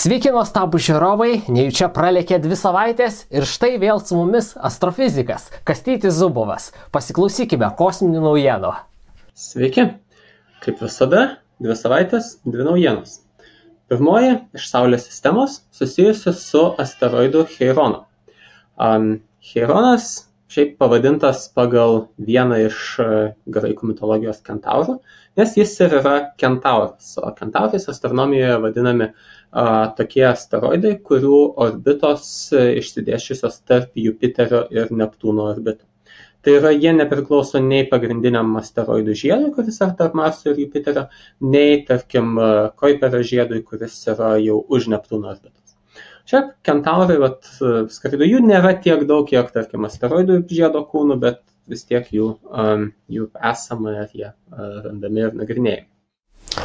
Sveiki nuostabūs žiūrovai, nejučia pralėkė 2 savaitės ir štai vėl su mumis astrofizikas Kastytis Zubovas. Pasiklausykime kosminių naujienų. Sveiki, kaip visada, 2 savaitės, 2 naujienos. Pirmoji iš Saulės sistemos susijusi su asteroidu Cheironu. Cheironas šiaip pavadintas pagal vieną iš graikų mitologijos kentaurų, nes jis ir yra kentauras, o kentaurais astronomijoje vadinami tokie asteroidai, kurių orbitos išsidėsčiusios tarp Jupiterio ir Neptūno orbitų. Tai yra, jie nepriklauso nei pagrindiniam asteroidų žiedui, kuris yra tarp Marso ir Jupiterio, nei, tarkim, Kuiperio žiedui, kuris yra jau už Neptūno orbitos. Šiaip kentaurai, skraido, jų nėra tiek daug, kiek, tarkim, asteroidų žiedo kūnų, bet vis tiek jų esama ir jie randami ir nagrinėjami.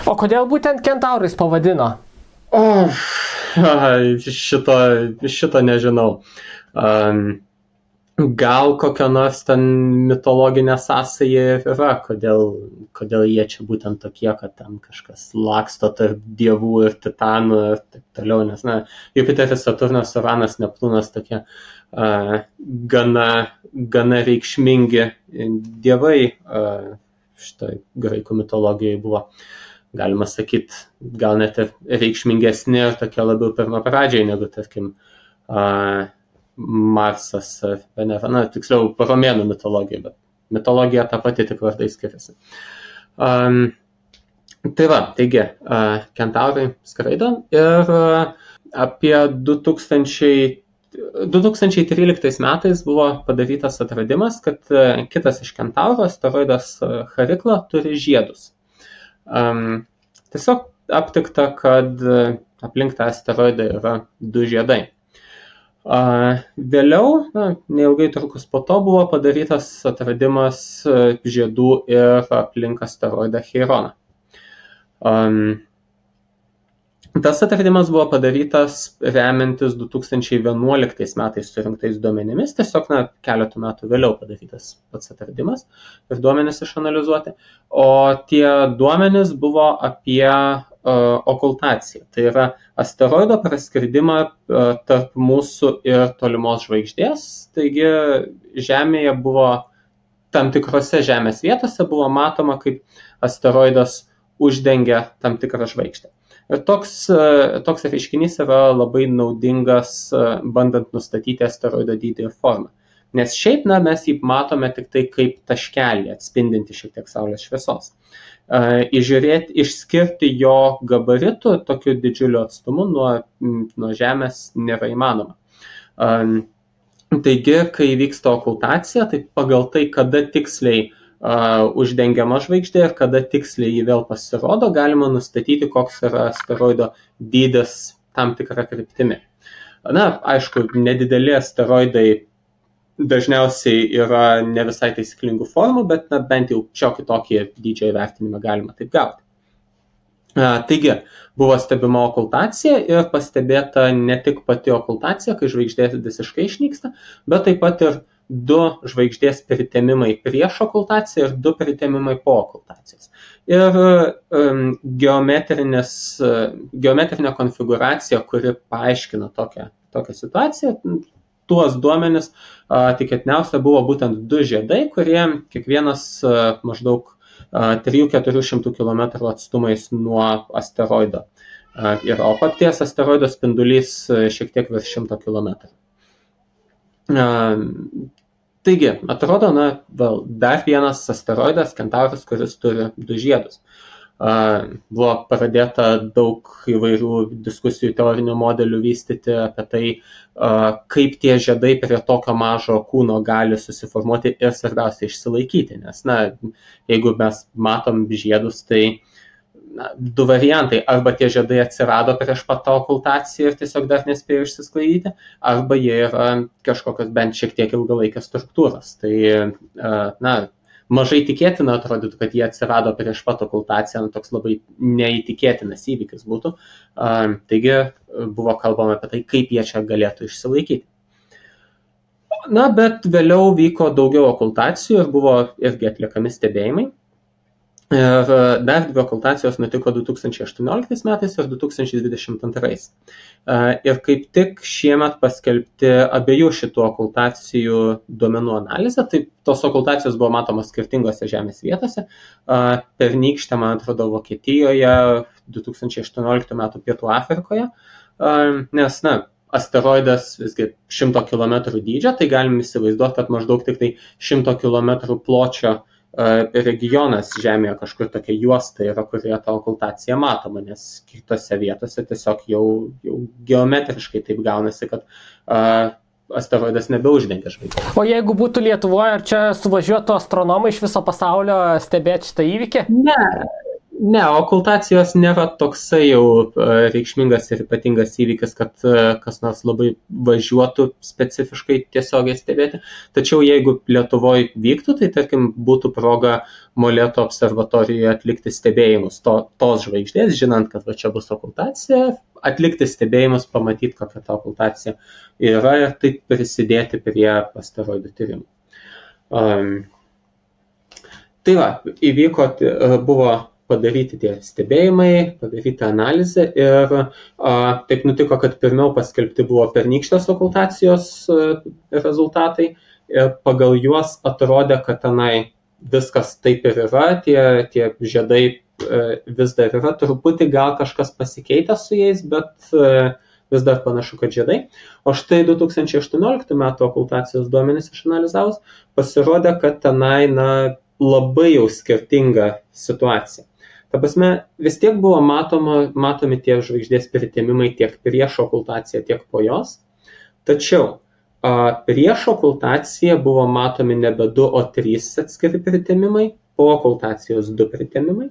O kodėl būtent kentaurais pavadino? Šito nežinau. Gal kokia nors ten mitologinė sąsaja yra, kodėl jie čia būtent tokie, kad ten kažkas laksto tarp dievų ir titanų ir taip toliau, nes, Jupiteris, Saturnas, Uranas, Neptūnas tokie gana reikšmingi dievai šitoj graikų mitologijai buvo. Galima sakyti, gal net ir reikšmingesni ir tokie labiau pirmapradžiai negu, tarkim, Marsas ar Venera, tiksliau, romėnų mitologija, bet mitologija ta pati, tik vardai skiriasi. Taigi, kentaurai skraido ir apie 2013 metais buvo padarytas atradimas, kad kitas iš kentaurų, asteroidas Charikla, turi žiedus. Tiesiog aptikta, kad aplink tą asteroidą yra 2 žiedai. Vėliau, neilgai trukus po to, buvo padarytas atradimas žiedų ir aplink asteroidą Cheironą. Tas atradimas buvo padarytas remiantis 2011 metais surinktais duomenimis, tiesiog keletų metų vėliau padarytas pats atradimas ir duomenys išanalizuoti. O tie duomenys buvo apie okultaciją, tai yra asteroido praskridimą tarp mūsų ir tolimos žvaigždės, taigi Žemėje buvo, tam tikrose Žemės vietose buvo matoma, kaip asteroidas uždengia tam tikrą žvaigždę. Ir toks reiškinys yra labai naudingas, bandant nustatyti asteroido dydį ir formą. Nes šiaip mes jį matome tik tai kaip taškelį, atspindinti šiek tiek Saulės šviesos. Išskirti jo gabaritų tokiu didžiuliu atstumu nuo Žemės nėra įmanoma. Taigi, kai vyksta okultacija, tai pagal tai, kada tiksliai uždengiama žvaigždė ir kada tiksliai jį vėl pasirodo, galima nustatyti, koks yra asteroido dydis tam tikrą kryptimi. Aišku, nedideli asteroidai dažniausiai yra ne visai taisyklingų formų, bet bent jau šiokį tokį dydžio įvertinimą galima taip gauti. Taigi, buvo stebima okultacija ir pastebėta ne tik pati okultacija, kai žvaigždė visiškai išnyksta, bet taip pat ir 2 žvaigždės pritemimai prieš okultaciją ir 2 pritemimai po okultacijos. Ir geometrinė konfigūracija, kuri paaiškina tokią situaciją, tuos duomenis tikėtiniausia buvo būtent 2 žiedai, kurie kiekvienas maždaug 300–400 km atstumais nuo asteroido. O paties asteroido spindulys šiek tiek virš 100 km. Taigi, atrodo, dar vienas asteroidas, kentauras, kuris turi 2 žiedus. Buvo pradėta daug įvairių diskusijų, teorinių modelių vystyti apie tai, kaip tie žiedai prie tokio mažo kūno gali susiformuoti ir svarbiausia išsilaikyti. Nes, jeigu mes matom žiedus, tai 2 variantai. Arba tie žiedai atsirado prieš pat tą okultaciją ir tiesiog dar nespėjo išsisklaidyti, arba jie yra kažkokios bent šiek tiek ilgalaikės struktūros. Tai, mažai tikėtina atrodytų, kad jie atsirado prieš pat okultaciją, toks labai neįtikėtinas įvykis būtų. Taigi buvo kalbama apie tai, kaip jie čia galėtų išsilaikyti. Bet vėliau vyko daugiau okultacijų ir buvo irgi atliekami stebėjimai. Ir dar 2 okultacijos nutiko 2018 metais ir 2022. Ir kaip tik šiemet paskelbti abiejų šitų okultacijų duomenų analizę, tai tos okultacijos buvo matomos skirtingose žemės vietose. Pernykštė, man atrodo, Vokietijoje, 2018 metų Pietų Afrikoje, nes, asteroidas visgi 100 km dydžio, tai galim įsivaizduoti, kad maždaug tik tai 100 km pločio regionas Žemėje kažkur tokia juosta yra, kurioje ta okultacija matoma, nes kitose vietose tiesiog jau geometriškai taip gaunasi, kad asteroidas nebeuždengia žvaigždės. O jeigu būtų Lietuvoje, ar čia suvažiuotų astronomai iš viso pasaulio stebėti šitą įvykį? Ne, okultacijos nėra toksai jau reikšmingas ir ypatingas įvykis, kad kas nors labai važiuotų specifiškai tiesiogiai stebėti. Tačiau jeigu Lietuvoje vyktų, tai tarkim būtų proga Molėtų observatorijoje atlikti stebėjimus tos žvaigždės, žinant, kad čia bus okultacija, atlikti stebėjimus, pamatyti, kokia ta okultacija yra ir taip prisidėti prie asteroidų tyrimų. Tai buvo padaryti tie stebėjimai, padaryti analizę ir taip nutiko, kad pirmiau paskelbti buvo pernykštės okultacijos rezultatai ir pagal juos atrodė, kad tenai viskas taip ir yra, tie žiedai vis dar yra, truputį gal kažkas pasikeitė su jais, bet vis dar panašu, kad žiedai. O štai 2018 metų okultacijos duomenys išanalizavus pasirodė, kad tenai labai jau skirtinga situacija. Ta prasme, vis tiek buvo matomi tie žvaigždės pritemimai tiek prieš okultaciją, tiek po jos. Tačiau prieš okultaciją buvo matomi nebe 2, o 3 atskiri pritemimai, po okultacijos 2 pritemimai.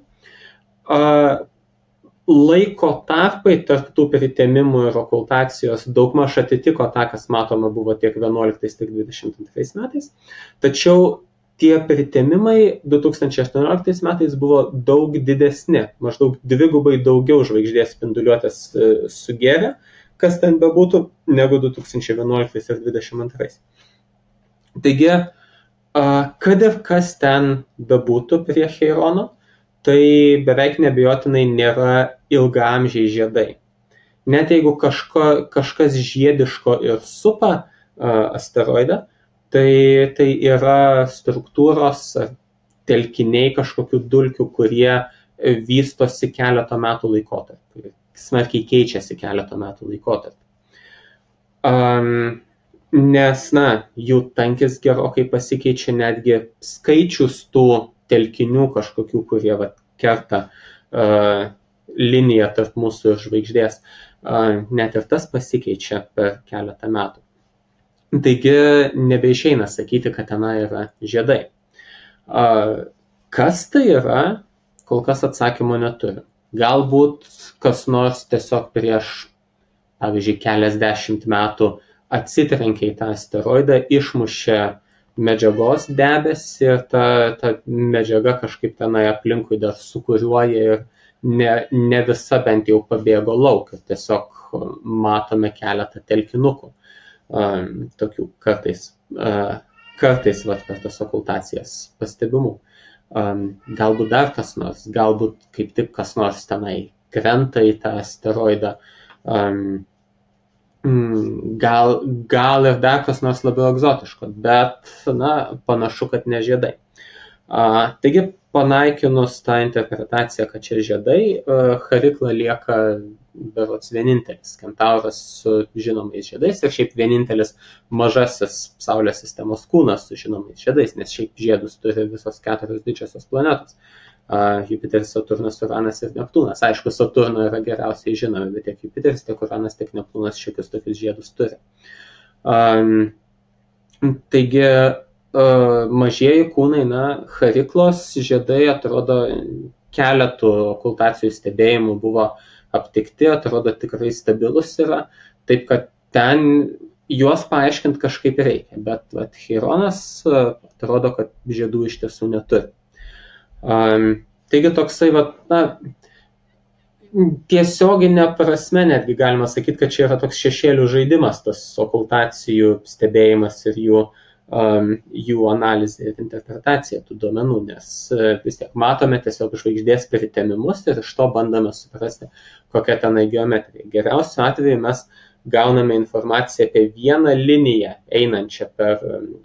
Laiko tarpai tarp tų pritemimų ir okultacijos daugmaž atitiko tą, kas matoma buvo tiek 11, tiek 22 metais. Tačiau tie pritemimai 2018 metais buvo daug didesni, maždaug 2 daugiau žvaigždės spinduliuotės sugėrė, kas ten bebūtų, negu 2011 ir 2022. Taigi, kad ir kas ten bebūtų prie Cheirono, tai beveik neabejotinai nėra ilgaamžiai žiedai. Net jeigu kažkas žiediško ir supa asteroidą, tai yra struktūros ar telkiniai kažkokių dulkių, kurie vystosi keletą metų laikotarpį, smarkiai keičiasi keletą metų laikotarpį. Nes, jų tankis gerokai pasikeičia, netgi skaičius tų telkinių kažkokių, kurie kerta liniją tarp mūsų ir žvaigždės, net ir tas pasikeičia per keletą metų. Taigi nebeišeina sakyti, kad tenai yra žiedai. Kas tai yra, kol kas atsakymo neturi. Galbūt kas nors tiesiog prieš, pavyzdžiui, keliasdešimt metų atsitrenkė į tą asteroidą, išmušė medžiagos debesį ir ta medžiaga kažkaip tenai aplinkui dar sukuriuoja ir ne visa bent jau pabėgo lauk. Tiesiog matome keletą telkinukų. Tokių kartais per tas okultacijas pastebimų. Galbūt dar kas nors, galbūt kaip tik kas nors tenai krenta į tą asteroidą, gal ir dar kas nors labiau egzotiško, bet panašu, kad ne žiedai. Taigi, panaikinus tą interpretaciją, kad čia žiedai, Charikla lieka berods vienintelis Kentauras su žinomais žiedais ir šiaip vienintelis mažasis Saulės sistemos kūnas su žinomais žiedais, nes šiaip žiedus turi visos 4 didžiosios planetos. Jupiteris, Saturnas, Uranas ir Neptūnas. Aišku, Saturno yra geriausiai žinomi, bet tiek Jupiteris, tiek Uranas, tiek Neptūnas šiokius tokius žiedus turi. Taigi, mažieji kūnai, Chariklos žiedai atrodo keletų okultacijų stebėjimų buvo aptikti, atrodo tikrai stabilus yra, taip kad ten juos paaiškinti kažkaip reikia, bet Cheironas atrodo, kad žiedų iš tiesų neturi. Taigi toksai, tiesioginė prasme netgi galima sakyti, kad čia yra toks šešėlių žaidimas, tas okultacijų stebėjimas ir jų jų analizė ir interpretacija tų duomenų, nes vis tiek matome tiesiog žvaigždės pritemimus ir iš to bandome suprasti, kokia tenai geometrija. Geriausiu atveju mes gauname informaciją apie vieną liniją einančią per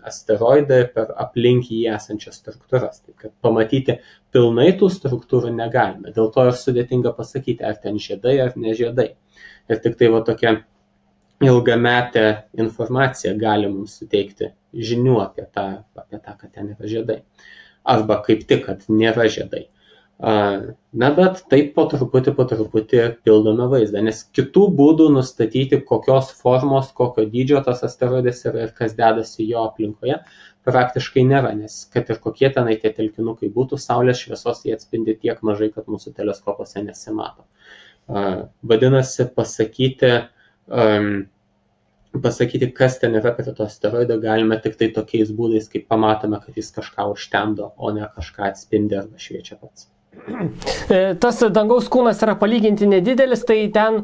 asteroidą ir per aplink jį esančias struktūras. Tai kad pamatyti pilnai tų struktūrų negalime. Dėl to ir sudėtinga pasakyti, ar ten žiedai ar ne žiedai. Ir tik tai tokia ilgametė informacija gali mums suteikti žinių apie tą, kad ten yra žiedai. Arba kaip tik, kad nėra žiedai. Na, bet taip po truputį pildome vaizdą, nes kitų būdų nustatyti, kokios formos, kokio dydžio tas asteroidas yra ir kas dedasi jo aplinkoje, praktiškai nėra, nes kad ir kokie tenai tie telkinukai būtų, saulės šviesos jie atspindi tiek mažai, kad mūsų teleskopuose nesimato. Vadinasi, pasakyti, kas ten yra prie to asteroido, galime tik tai tokiais būdais, kaip pamatome, kad jis kažką užtemdo, o ne kažką atspindi arba šviečia pats. Tas dangaus kūnas yra palyginti nedidelis, tai ten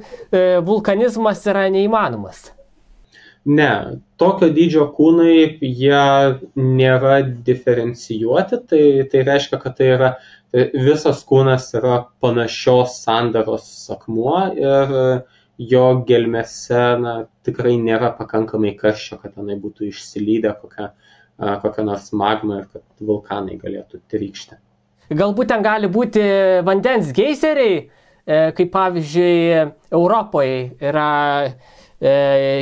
vulkanizmas yra neįmanomas. Ne, tokio dydžio kūnai, jie nėra diferencijuoti, tai reiškia, kad tai yra visas kūnas yra panašios sandaros akmuo ir jo gelmėse tikrai nėra pakankamai karščio, kad tenai būtų išsilydę kokia nors magma ir kad vulkanai galėtų trykšti. Galbūt ten gali būti vandens geizeriai, kaip pavyzdžiui Europoje yra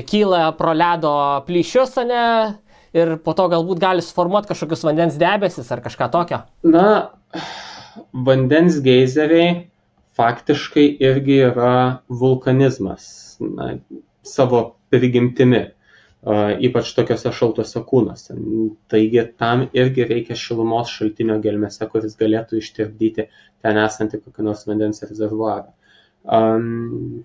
kyla pro ledo plyšius, ir po to galbūt gali suformuoti kažkokius vandens debesis ar kažką tokio. Na, vandens geizeriai faktiškai irgi yra vulkanizmas, savo prigimtimi, ypač tokiuose šaltuose kūnuose. Taigi tam irgi reikia šilumos šaltinio gelmėse, kuris galėtų ištirpdyti ten esantį kokį nors vandens rezervuarą.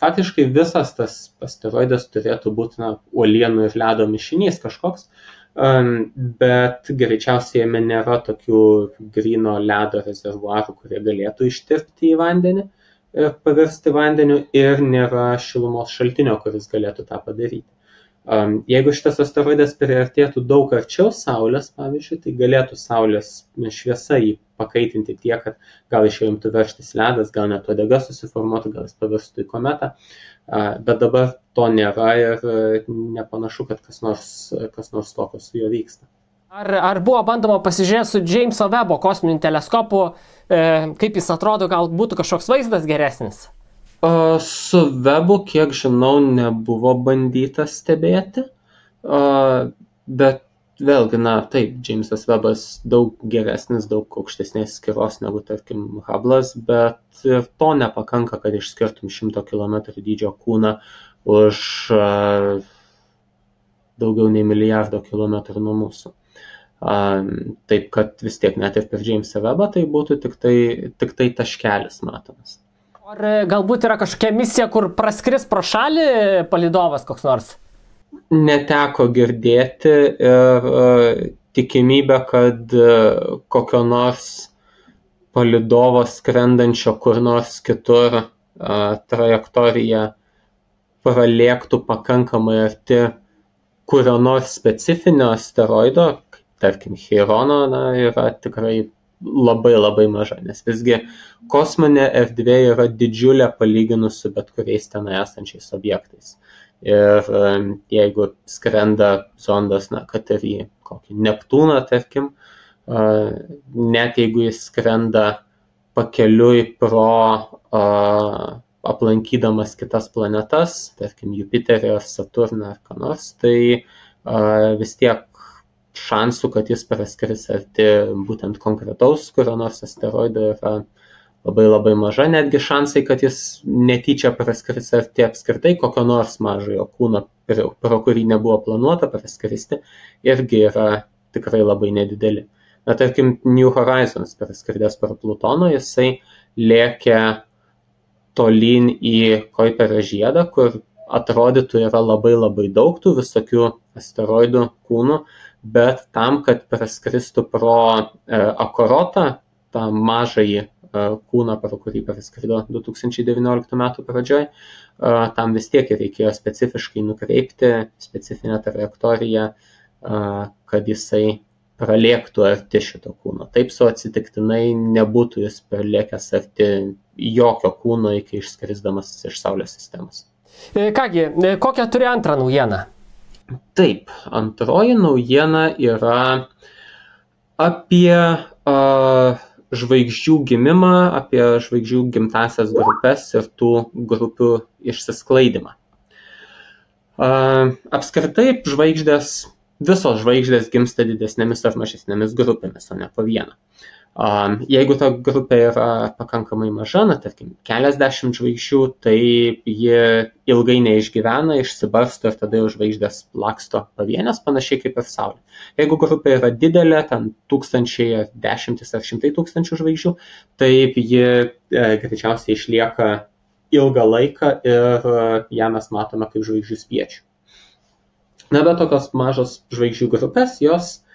Faktiškai visas tas asteroidas turėtų būti uolienų ir ledo mišinys kažkoks, bet greičiausiai jame nėra tokių gryno ledo rezervuarų, kurie galėtų ištirpti į vandenį ir pavirsti vandeniu, ir nėra šilumos šaltinio, kuris galėtų tą padaryti. Jeigu šitas asteroidas priartėtų daug arčiau Saulės, pavyzdžiui, tai galėtų Saulės šviesa jį pakaitinti tiek, kad gal iš jo imtų veržtis ledas, gal net uodega susiformuotų, gal jis pavirstų į kometą, bet dabar to nėra ir nepanašu, kad kas nors tokio su juo vyksta. Ar buvo bandoma pasižiūrėti su Jameso Webbo kosminiu teleskopu, kaip jis atrodo, gal būtų kažkoks vaizdas geresnis? Su Webbu, kiek žinau, nebuvo bandyta stebėti, bet vėlgi, taip, Jamesas Webbas daug geresnis, daug aukštesnės skiros negu, tarkim, Hubble'as, bet ir to nepakanka, kad išskirtum 100 km dydžio kūną už daugiau nei milijardo kilometrų nuo mūsų. Taip, kad vis tiek net ir per Jamesą Webbą tai būtų tik tai taškelis matomas. Ar galbūt yra kažkokia misija, kur praskris pro šalį palydovas koks nors? Neteko girdėti ir tikimybė, kad kokio nors palydovo skrendančio kur nors kitur trajektorija pralėktų pakankamai arti kurio nors specifinio asteroido, tarkim Chirono, yra tikrai labai maža, nes visgi kosminė erdvė yra didžiulė palyginus su bet kuriais ten esančiais objektais. Ir jeigu skrenda zondas, kad ir į kokį Neptūną, tarkim, net jeigu jis skrenda pakeliui pro aplankydamas kitas planetas, tarkim Jupiterį ar Saturną ar ką nors, tai vis tiek šansų, kad jis praskris arti būtent konkretaus kurio nors asteroido yra labai maža, netgi šansai, kad jis netyčia praskris arti apskritai kokio nors mažojo kūno, pro kurį nebuvo planuota praskristi, irgi yra tikrai labai nedideli. Tarkim, New Horizons praskridęs per Plutoną, jisai lėkė tolyn į Kuiperio žiedą, kur atrodytų yra labai daug tų visokių asteroidų kūnų, bet tam, kad praskristų pro Akorotą, tą mažąjį kūną, pro kurį praskrido 2019 metų pradžioj, tam vis tiek reikėjo specifiškai nukreipti specifinę trajektoriją kad jisai pralėktų arti šito kūno. Taip su atsitiktinai nebūtų jis pralėkęs arti jokio kūno iki išskrisdamas iš Saulės sistemos. Kągi, kokią turi antrą naujieną? Taip, antroji naujiena yra apie žvaigždžių gimimą, apie žvaigždžių gimtasias grupės ir tų grupių išsisklaidimą. Apskritai visos žvaigždės gimsta didesnėmis ar mažesnėmis grupėmis, o ne po vieną. Jeigu ta grupė yra pakankamai maža, tarkim, keliasdešimt žvaigždžių, tai ji ilgai neišgyvena, išsibarsto ir tada jau žvaigždės laksto pavienės, panašiai kaip ir Saulė. Jeigu grupė yra didelė, ten tūkstančiai ar dešimtis ar šimtai tūkstančių žvaigždžių, taip ji greičiausiai išlieka ilgą laiką ir ją mes matome kaip žvaigždžių spiečių. Na, bet tokios mažos žvaigždžių grupės, jos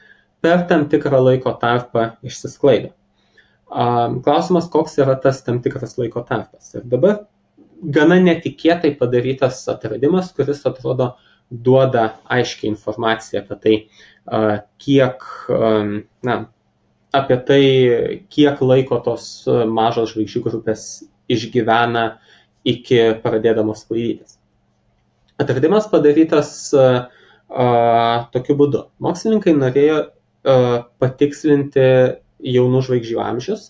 per tam tikrą laiko tarpą išsisklaido. Klausimas, koks yra tas tam tikras laiko tarpas. Ir dabar gana netikėtai padarytas atradimas, kuris atrodo duoda aiškiai informaciją apie tai, kiek laiko tos mažos žvaigždžių grupės išgyvena iki pradėdamos sklaidytis. Atradimas padarytas tokiu būdu. Mokslininkai norėjo patikslinti jaunų žvaigždžių amžius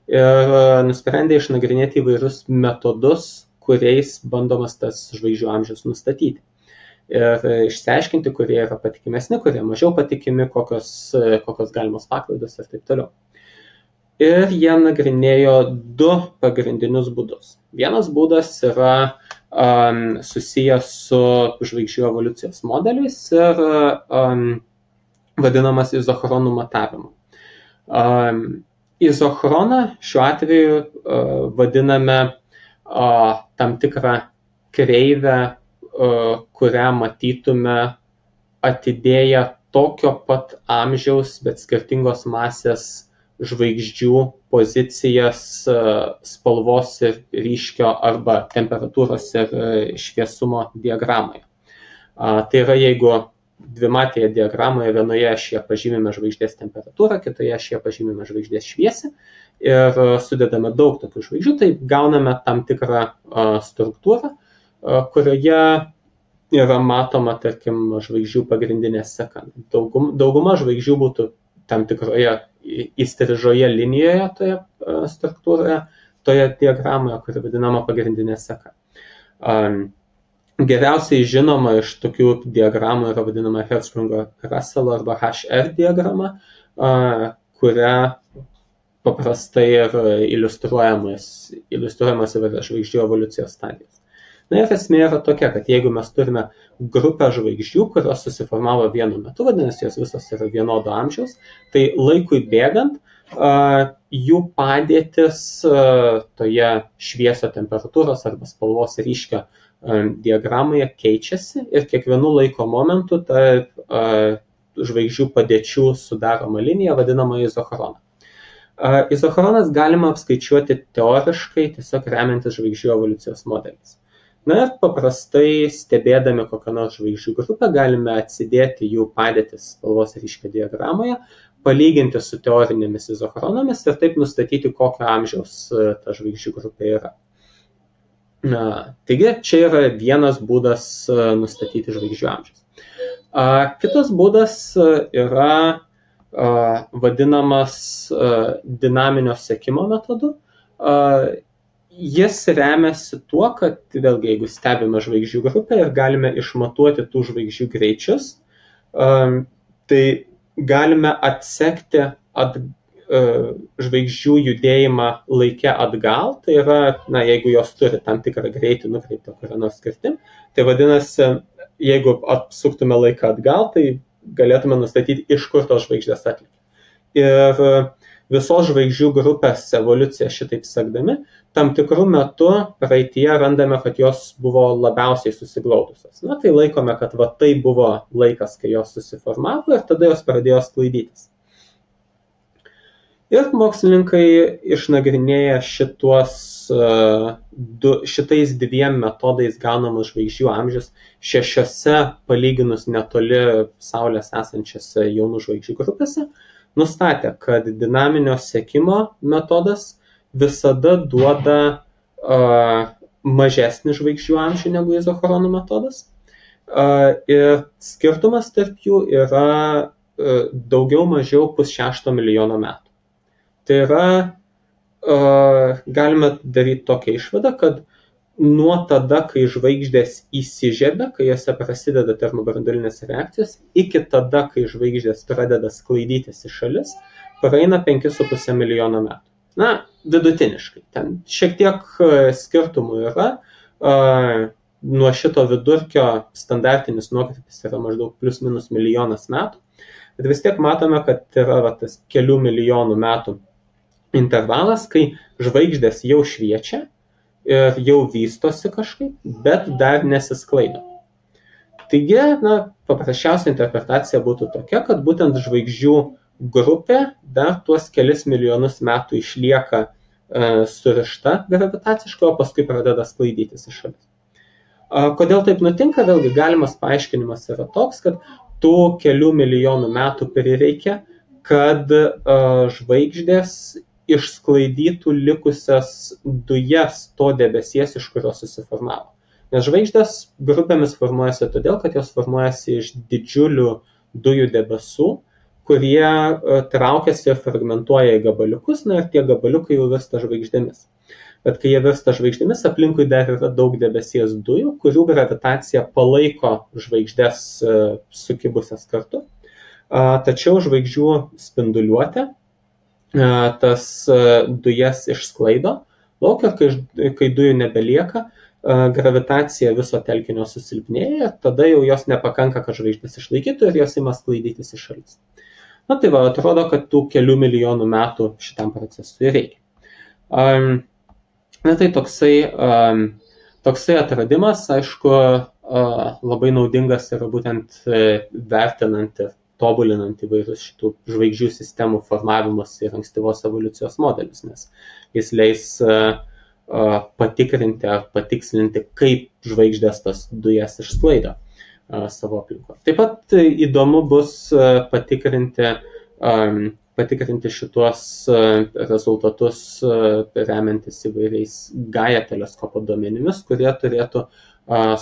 ir nusprendė išnagrinėti įvairius metodus, kuriais bandomas tas žvaigždžių amžius nustatyti. Ir išsiaiškinti, kurie yra patikimesni, kurie mažiau patikimi, kokios galimos paklaidos ir taip toliau. Ir jie nagrinėjo du pagrindinius būdus. Vienas būdas yra susijęs su žvaigždžių evoliucijos modeliais ir vadinamas izochronų matavimu. Izochroną šiuo atveju vadiname tam tikrą kreivę, kurią matytume atidėję tokio pat amžiaus, bet skirtingos masės žvaigždžių pozicijas spalvos ir ryškio arba temperatūros ir šviesumo diagramoje. Tai yra, jeigu dvimatėje diagramoje vienoje ašyje pažymime žvaigždės temperatūrą, kitoje ašyje pažymime žvaigždės šviesą ir sudedame daug tokių žvaigždžių, tai gauname tam tikrą struktūrą, kurioje yra matoma, tarkim, žvaigždžių pagrindinė seka. Dauguma žvaigždžių būtų tam tikroje įstrižoje linijoje toje struktūroje, toje diagramoje, kuri vadinama pagrindinė seka. Geriausiai žinoma iš tokių diagramų yra vadinama Hertzsprung-Russell arba HR diagrama, kuria paprastai yra iliustruojamas įvairios žvaigždžių evoliucijos stadijos. Na ir esmė yra tokia, kad jeigu mes turime grupę žvaigždžių, kurios susiformavo vienu metu, vadinasi, jos visos yra vienodo amžiaus, tai laikui bėgant jų padėtis toje šviesio temperatūros arba spalvos ryškio diagramoje keičiasi ir kiekvienu laiko momentu tarp žvaigždžių padėčių sudaroma linija vadinama izochroną. Izochronas galima apskaičiuoti teoriškai, tiesiog remiantis žvaigždžių evoliucijos modeliais. Na ir paprastai stebėdami kokią nors žvaigždžių grupę galime atsidėti jų padėtis spalvos ryškio diagramoje, palyginti su teorinėmis izochronomis ir taip nustatyti, kokio amžiaus ta žvaigždžių grupė yra. Taigi čia yra vienas būdas nustatyti žvaigždžių amžius. Kitas būdas yra vadinamas dinaminio sekimo metodu. Jis remiasi tuo, kad vėlgi, jeigu stebime žvaigždžių grupę ir galime išmatuoti tų žvaigždžių greičius, tai galime atsekti žvaigždžių judėjimą laike atgal, tai yra, jeigu jos turi tam tikrą greitį nukreiptą kurią nors kryptim, tai vadinasi, jeigu apsuktume laiką atgal, tai galėtume nustatyti, iš kur tos žvaigždės atlikė. Ir visos žvaigždžių grupės evoliuciją šitaip sekdami, tam tikrų metų praeityje randame, kad jos buvo labiausiai susiglaudusios. Na, tai laikome, kad tai buvo laikas, kai jos susiformavo ir tada jos pradėjo sklaidytis. Ir mokslininkai išnagrinėja šitais dviem metodais gaunamus žvaigždžių amžius 6 palyginus netoli Saulės esančiose jaunų žvaigždžių grupėse, nustatė, kad dinaminio sekimo metodas visada duoda mažesnį žvaigždžių amžių negu izochronų metodas. Ir skirtumas tarp jų yra daugiau mažiau 5–6 milijono metų. Tai yra, galime daryti tokią išvadą, kad nuo tada, kai žvaigždės įsižiebia, kai jose prasideda termobranduolinės reakcijos, iki tada, kai žvaigždės pradeda sklaidytis į šalis, praeina 5,5 milijono metų. Na, vidutiniškai. Ten šiek tiek skirtumų yra. Nuo šito vidurkio standartinis nuokrypis yra maždaug plius minus milijonas metų. Bet vis tiek matome, kad yra tas kelių milijonų metų intervalas, kai žvaigždės jau šviečia ir jau vystosi kažkaip, bet dar nesisklaido. Taigi, paprasčiausia interpretacija būtų tokia, kad būtent žvaigždžių grupė dar tuos kelis milijonus metų išlieka surišta gravitaciškai, o paskui pradeda sklaidytis į šalis. Kodėl taip nutinka? Vėlgi galimas paaiškinimas yra toks, kad tų kelių milijonų metų prireikia, kad žvaigždės išsklaidytų likusias dujas to debesies, iš kurio susiformavo. Nes žvaigždės grupėmis formuojasi todėl, kad jos formuojasi iš didžiulių dujų debesų, kurie traukiasi ir fragmentuoja į gabaliukus, ir tie gabaliukai jau virsta žvaigždėmis. Bet kai jie virsta žvaigždėmis, aplinkui dar yra daug debesies dujų, kurių gravitacija palaiko žvaigždės sukibusias kartu. Tačiau žvaigždžių spinduliuotė tas dujas išsklaido lauk ir kai dujų nebelieka, gravitacija viso telkinio susilpnėja, tada jau jos nepakanka, kad žvaigždės išlaikytų ir jos ima sklaidytis į šalis. Na tai va, atrodo, kad tų kelių milijonų metų šitam procesui reikia. Na tai toksai atradimas, aišku, labai naudingas yra būtent vertinant ir tobulinant įvairius šitų žvaigždžių sistemų formavimus ir ankstyvos evoliucijos modelius, nes jis leis patikrinti ar patikslinti, kaip žvaigždės tas dujas išsklaido savo aplinkoje. Taip pat įdomu bus patikrinti šituos rezultatus remiantis įvairiais Gaia teleskopo duomenimis, kurie turėtų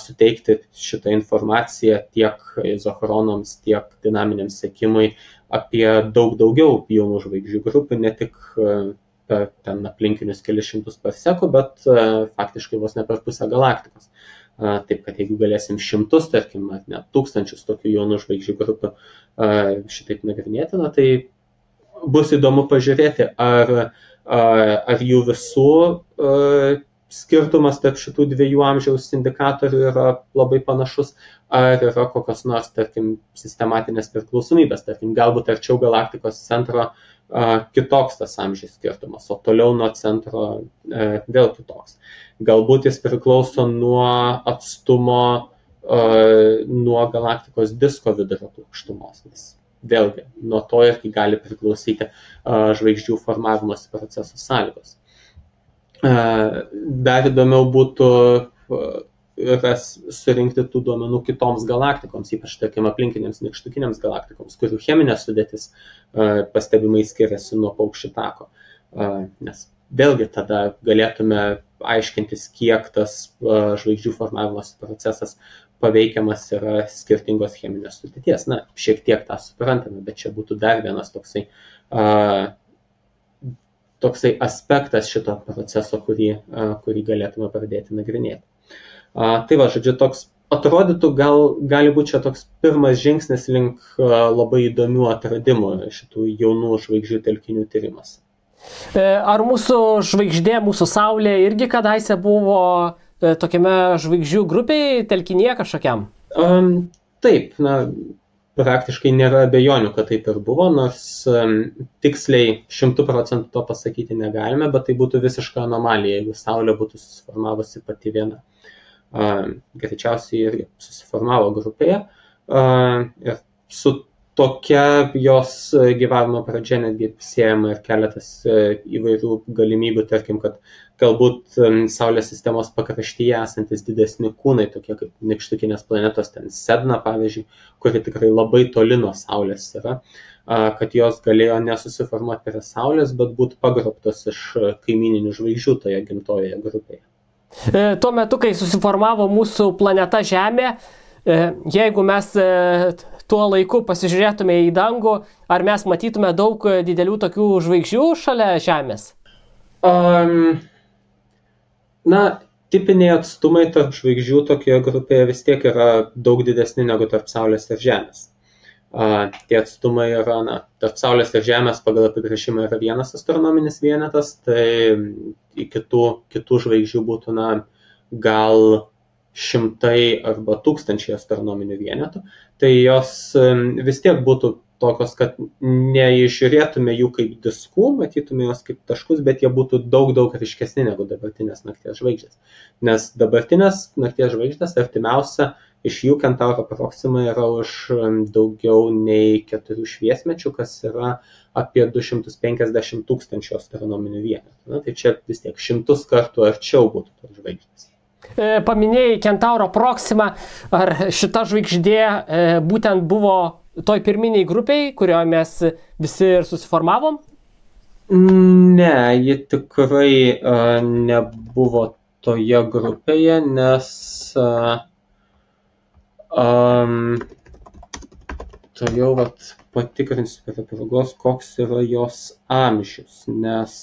suteikti šitą informaciją tiek izochronams, tiek dinaminiam sekimui apie daug daugiau jaunų žvaigždžių grupių, ne tik per ten aplinkinius kelis šimtus parsekų, bet faktiškai vos ne per pusę galaktikos. Taip, kad jeigu galėsim šimtus, tarkim, net tūkstančius tokių jaunų žvaigždžių grupių šitaip nagrinėti, tai bus įdomu pažiūrėti, ar jų visų skirtumas tarp šitų dviejų amžiaus indikatorių yra labai panašus, ar yra kokios nors, tarkim, sistematinės priklausomybės, tarkim, galbūt arčiau galaktikos centro kitoks tas amžiaus skirtumas, o toliau nuo centro vėl kitoks. Galbūt jis priklauso nuo atstumo nuo galaktikos disko vidurio plokštumos, nes vėlgi nuo to irgi gali priklausyti žvaigždžių formavimosi proceso sąlygos. Dar įdomiau būtų surinkti tų duomenų kitoms galaktikoms, ypač, tarkim, aplinkinėms nykštukiniams galaktikoms, kurių cheminė sudėtis pastebimai skiriasi nuo paukščių tako. Nes vėlgi tada galėtume aiškintis, kiek tas žvaigždžių formavimosi procesas paveikiamas yra skirtingos cheminės sudėties. Na, šiek tiek tą suprantame, bet čia būtų dar vienas toksai aspektas šito proceso, kurį galėtume pradėti nagrinėti. Tai va, žodžiu, toks atrodytų, gali būti čia toks pirmas žingsnis link labai įdomių atradimų šitų jaunų žvaigždžių telkinių tyrimas. Ar mūsų žvaigždė, mūsų Saulė irgi kadaise buvo tokiame žvaigždžių grupėje, telkinyje kažkokiam? Taip, praktiškai nėra abejonių, kad taip ir buvo, nors tiksliai 100% to pasakyti negalime, bet tai būtų visiška anomalija, jeigu Saulė būtų susiformavusi pati viena. Greičiausiai irgi susiformavo grupėje ir su tokia jos gyvavimo pradžia, netgi siejama ir keletas įvairių galimybių, tarkim, kad galbūt Saulės sistemos pakraštyje esantis didesni kūnai, tokie kaip nykštukinės planetos, ten Sedna, pavyzdžiui, kuri tikrai labai toli nuo Saulės yra, kad jos galėjo nesusiformuoti prie Saulės, bet būtų pagrobtos iš kaimininių žvaigždžių toje gimtojoje grupėje. Tuo metu, kai susiformavo mūsų planeta Žemė, jeigu mes tuo laiku pasižiūrėtume į dangų, ar mes matytume daug didelių tokių žvaigždžių šalia Žemės? Na, tipiniai atstumai tarp žvaigždžių tokioje grupėje vis tiek yra daug didesni negu tarp Saulės ir Žemės. Tie atstumai yra, tarp Saulės ir Žemės pagal apibrėžimą yra vienas astronominis vienetas, tai į kitų žvaigždžių būtų, gal 100 arba 1000 astronominių vienetų, tai jos vis tiek būtų tokios, kad neižiūrėtume jų kaip diskų, matytume jos kaip taškus, bet jie būtų daug ryškesni negu dabartinės nakties žvaigždės. Nes dabartinės nakties žvaigždės artimiausia iš jų Kentauro Proxima yra už daugiau nei 4 šviesmečių, kas yra apie 250 000 astronominių vienetų. Tai čia vis tiek 100 kartų arčiau būtų tos žvaigždės. Paminėjai Kentauro Proxima, ar šita žvaigždė būtent buvo toj pirminiai grupiai, kurioje mes visi ir susiformavom? Ne, ji tikrai nebuvo toje grupėje, nes to jau patikrinsiu prie progos, koks yra jos amžius, nes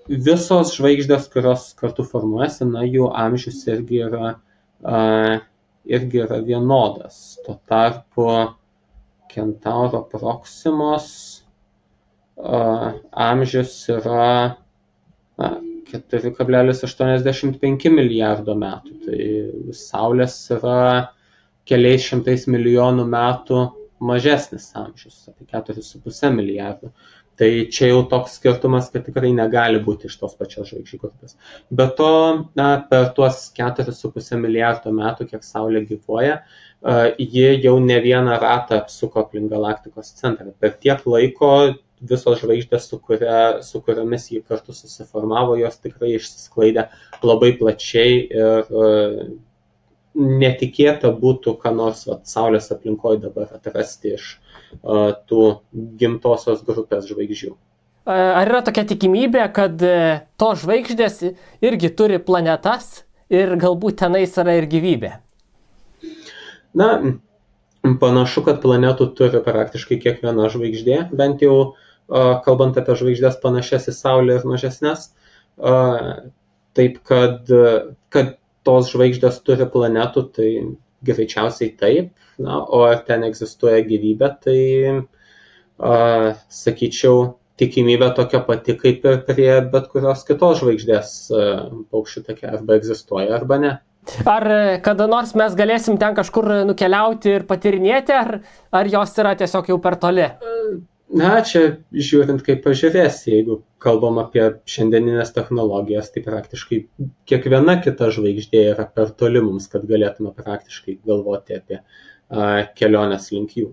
visos žvaigždės, kurios kartu formuojasi, jų amžius irgi yra vienodas. Tuo tarpu Kentauro Proximos amžius yra 4,85 milijardo metų. Tai Saulės yra keliais šimtais milijonų metų mažesnis amžius, apie 4,5 milijardų. Tai čia jau toks skirtumas, kad tikrai negali būti iš tos pačios žvaigždžių grupės. Be to, per tuos 4,5 milijardo metų, kiek Saulė gyvuoja, ji jau ne vieną ratą apsuko aplink galaktikos centrą. Per tiek laiko visos žvaigždės, su kuriomis jį kartu susiformavo, jos tikrai išsisklaidė labai plačiai ir netikėta būtų, ką nors Saulės aplinkoje dabar atrasti iš tų gimtosios grupės žvaigždžių. Ar yra tokia tikimybė, kad tos žvaigždės irgi turi planetas ir galbūt tenais yra ir gyvybė? Panašu, kad planetų turi praktiškai kiekviena žvaigždė, bent jau kalbant apie žvaigždės panašias į Saulę ir mažesnės, taip kad tos žvaigždės turi planetų, tai greičiausiai taip, o ar ten egzistuoja gyvybė, tai sakyčiau, tikimybė tokia pati kaip ir prie bet kurios kitos žvaigždės paukščių take, arba egzistuoja, arba ne. Ar kada nors mes galėsim ten kažkur nukeliauti ir patirinėti, ar jos yra tiesiog jau per toli? Čia žiūrint, kaip pažiūrėsi, jeigu kalbam apie šiandieninės technologijas, tai praktiškai kiekviena kita žvaigždė yra per toli mums, kad galėtume praktiškai galvoti apie keliones link jų.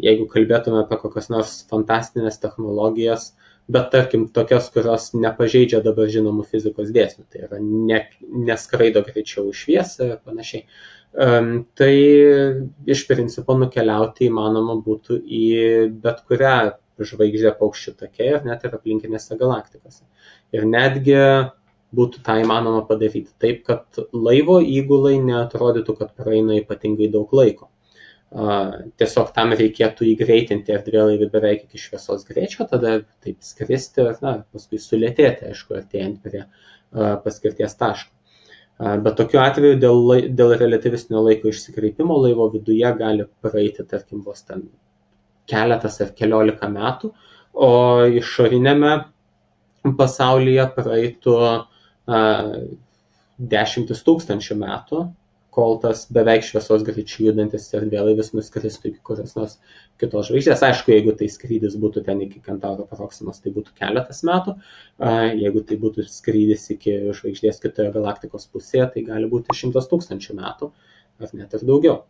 Jeigu kalbėtume apie kokias nors fantastinės technologijas, bet tarkim tokias, kurios nepažeidžia dabar žinomų fizikos dėsnių, tai yra neskraido greičiau už šviesą ir panašiai, tai iš principo nukeliauti įmanoma būtų į bet kurią žvaigždę paukščių take ir net ir aplinkinėse galaktikose. Ir netgi būtų tą įmanoma padaryti taip, kad laivo įgulai neatrodytų, kad praeina ypatingai daug laiko. Tiesiog tam reikėtų įgreitinti erdvėlaivį beveik iki šviesos greičio, tada taip skristi ir paskui sulėtėti, aišku, artėjant prie paskirties taško. Bet tokiu atveju dėl relativistinio laiko išsikreipimo laivo viduje gali praeiti, tarkim, vos ten keletas ar keliolika metų, o išorinėme pasaulyje praeitų 10 000 metų, kol tas beveik šviesos greičiu judantis erdvėlaivis nuskristų iki kurios nors kitos žvaigždės. Aišku, jeigu tai skrydis būtų ten iki Kentauro Proximos, tai būtų keletas metų. Jeigu tai būtų skrydis iki žvaigždės kitoje galaktikos pusėje, tai gali būti 100 000 metų, ar net ir daugiau.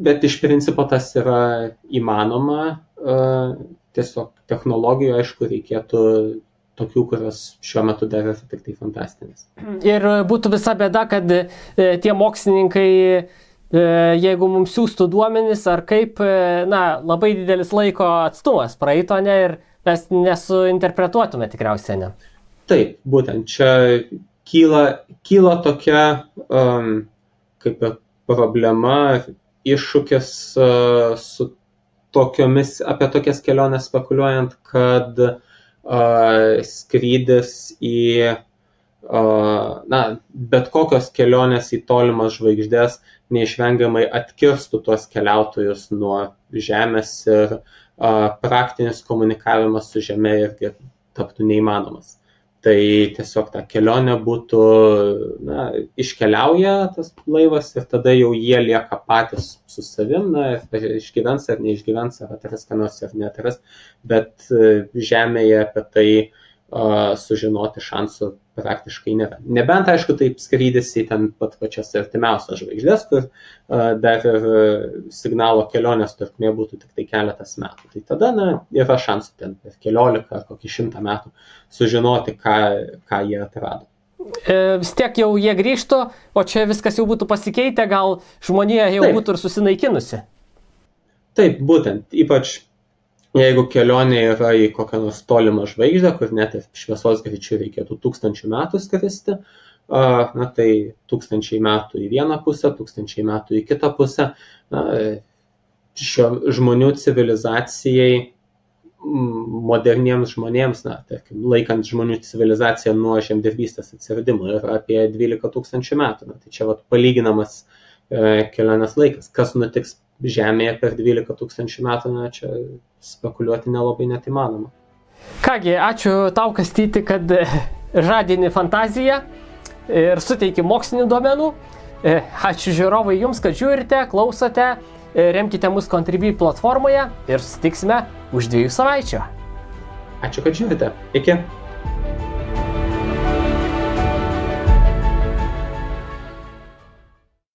Bet iš principo tas yra įmanoma, tiesiog technologijų, aišku, reikėtų tokių, kurios šiuo metu dar yra tik tai fantastinės. Ir būtų visa bėda, kad tie mokslininkai, jeigu mums siūstų duomenis, ar kaip, labai didelis laiko atstumas praeito, ne, ir mes nesuinterpretuotume tikriausiai, ne? Taip, būtent čia kyla tokia kaip problema, iššūkis apie tokias keliones spekuliuojant, kad skrydis į bet kokios kelionės į tolimas žvaigždės neišvengiamai atkirstų tuos keliautojus nuo Žemės ir praktinis komunikavimas su Žeme irgi taptų neįmanomas. Tai tiesiog ta kelionė būtų, iškeliauja tas laivas ir tada jau jie lieka patys su savim, išgyvens ar neišgyvens, ar atras ką nors ar neatras, bet Žemėje apie tai sužinoti šansų praktiškai nėra. Nebent, aišku, taip skrydis į ten pat pačias artimiausias žvaigždės, kur dar ir signalo kelionės trukmė būtų tik tai keletas metų. Tai tada yra šansų ten per 14 ar kokį 100 metų sužinoti, ką jie atrado. Vis tiek jau jie grįžtų, o čia viskas jau būtų pasikeitę, gal žmonija jau būtų ir susinaikinusi. Taip, būtent, ypač jeigu kelionė yra į kokią nors tolimą žvaigždę, kur net ir šviesos greičiu reikėtų 1000 metų skristi, tai 1000 metų į vieną pusę, 1000 metų į kitą pusę. Žmonių civilizacijai, moderniems žmonėms, tarkim, laikant žmonių civilizaciją nuo žemdirbystės atsiradimo, yra apie 12 000 metų. Tai čia palyginamas kelionės laikas. Kas nutiks Žemėje per 12 000 metų, čia spekuliuoti nelabai net įmanoma. Kągi, ačiū tau, Kastyti, kad žadini fantaziją ir suteiki mokslinių duomenų. Ačiū žiūrovai jums, kad žiūrite, klausote, remkite mus Contribui platformoje ir susitiksime už 2 savaičių. Ačiū, kad žiūrite. Iki.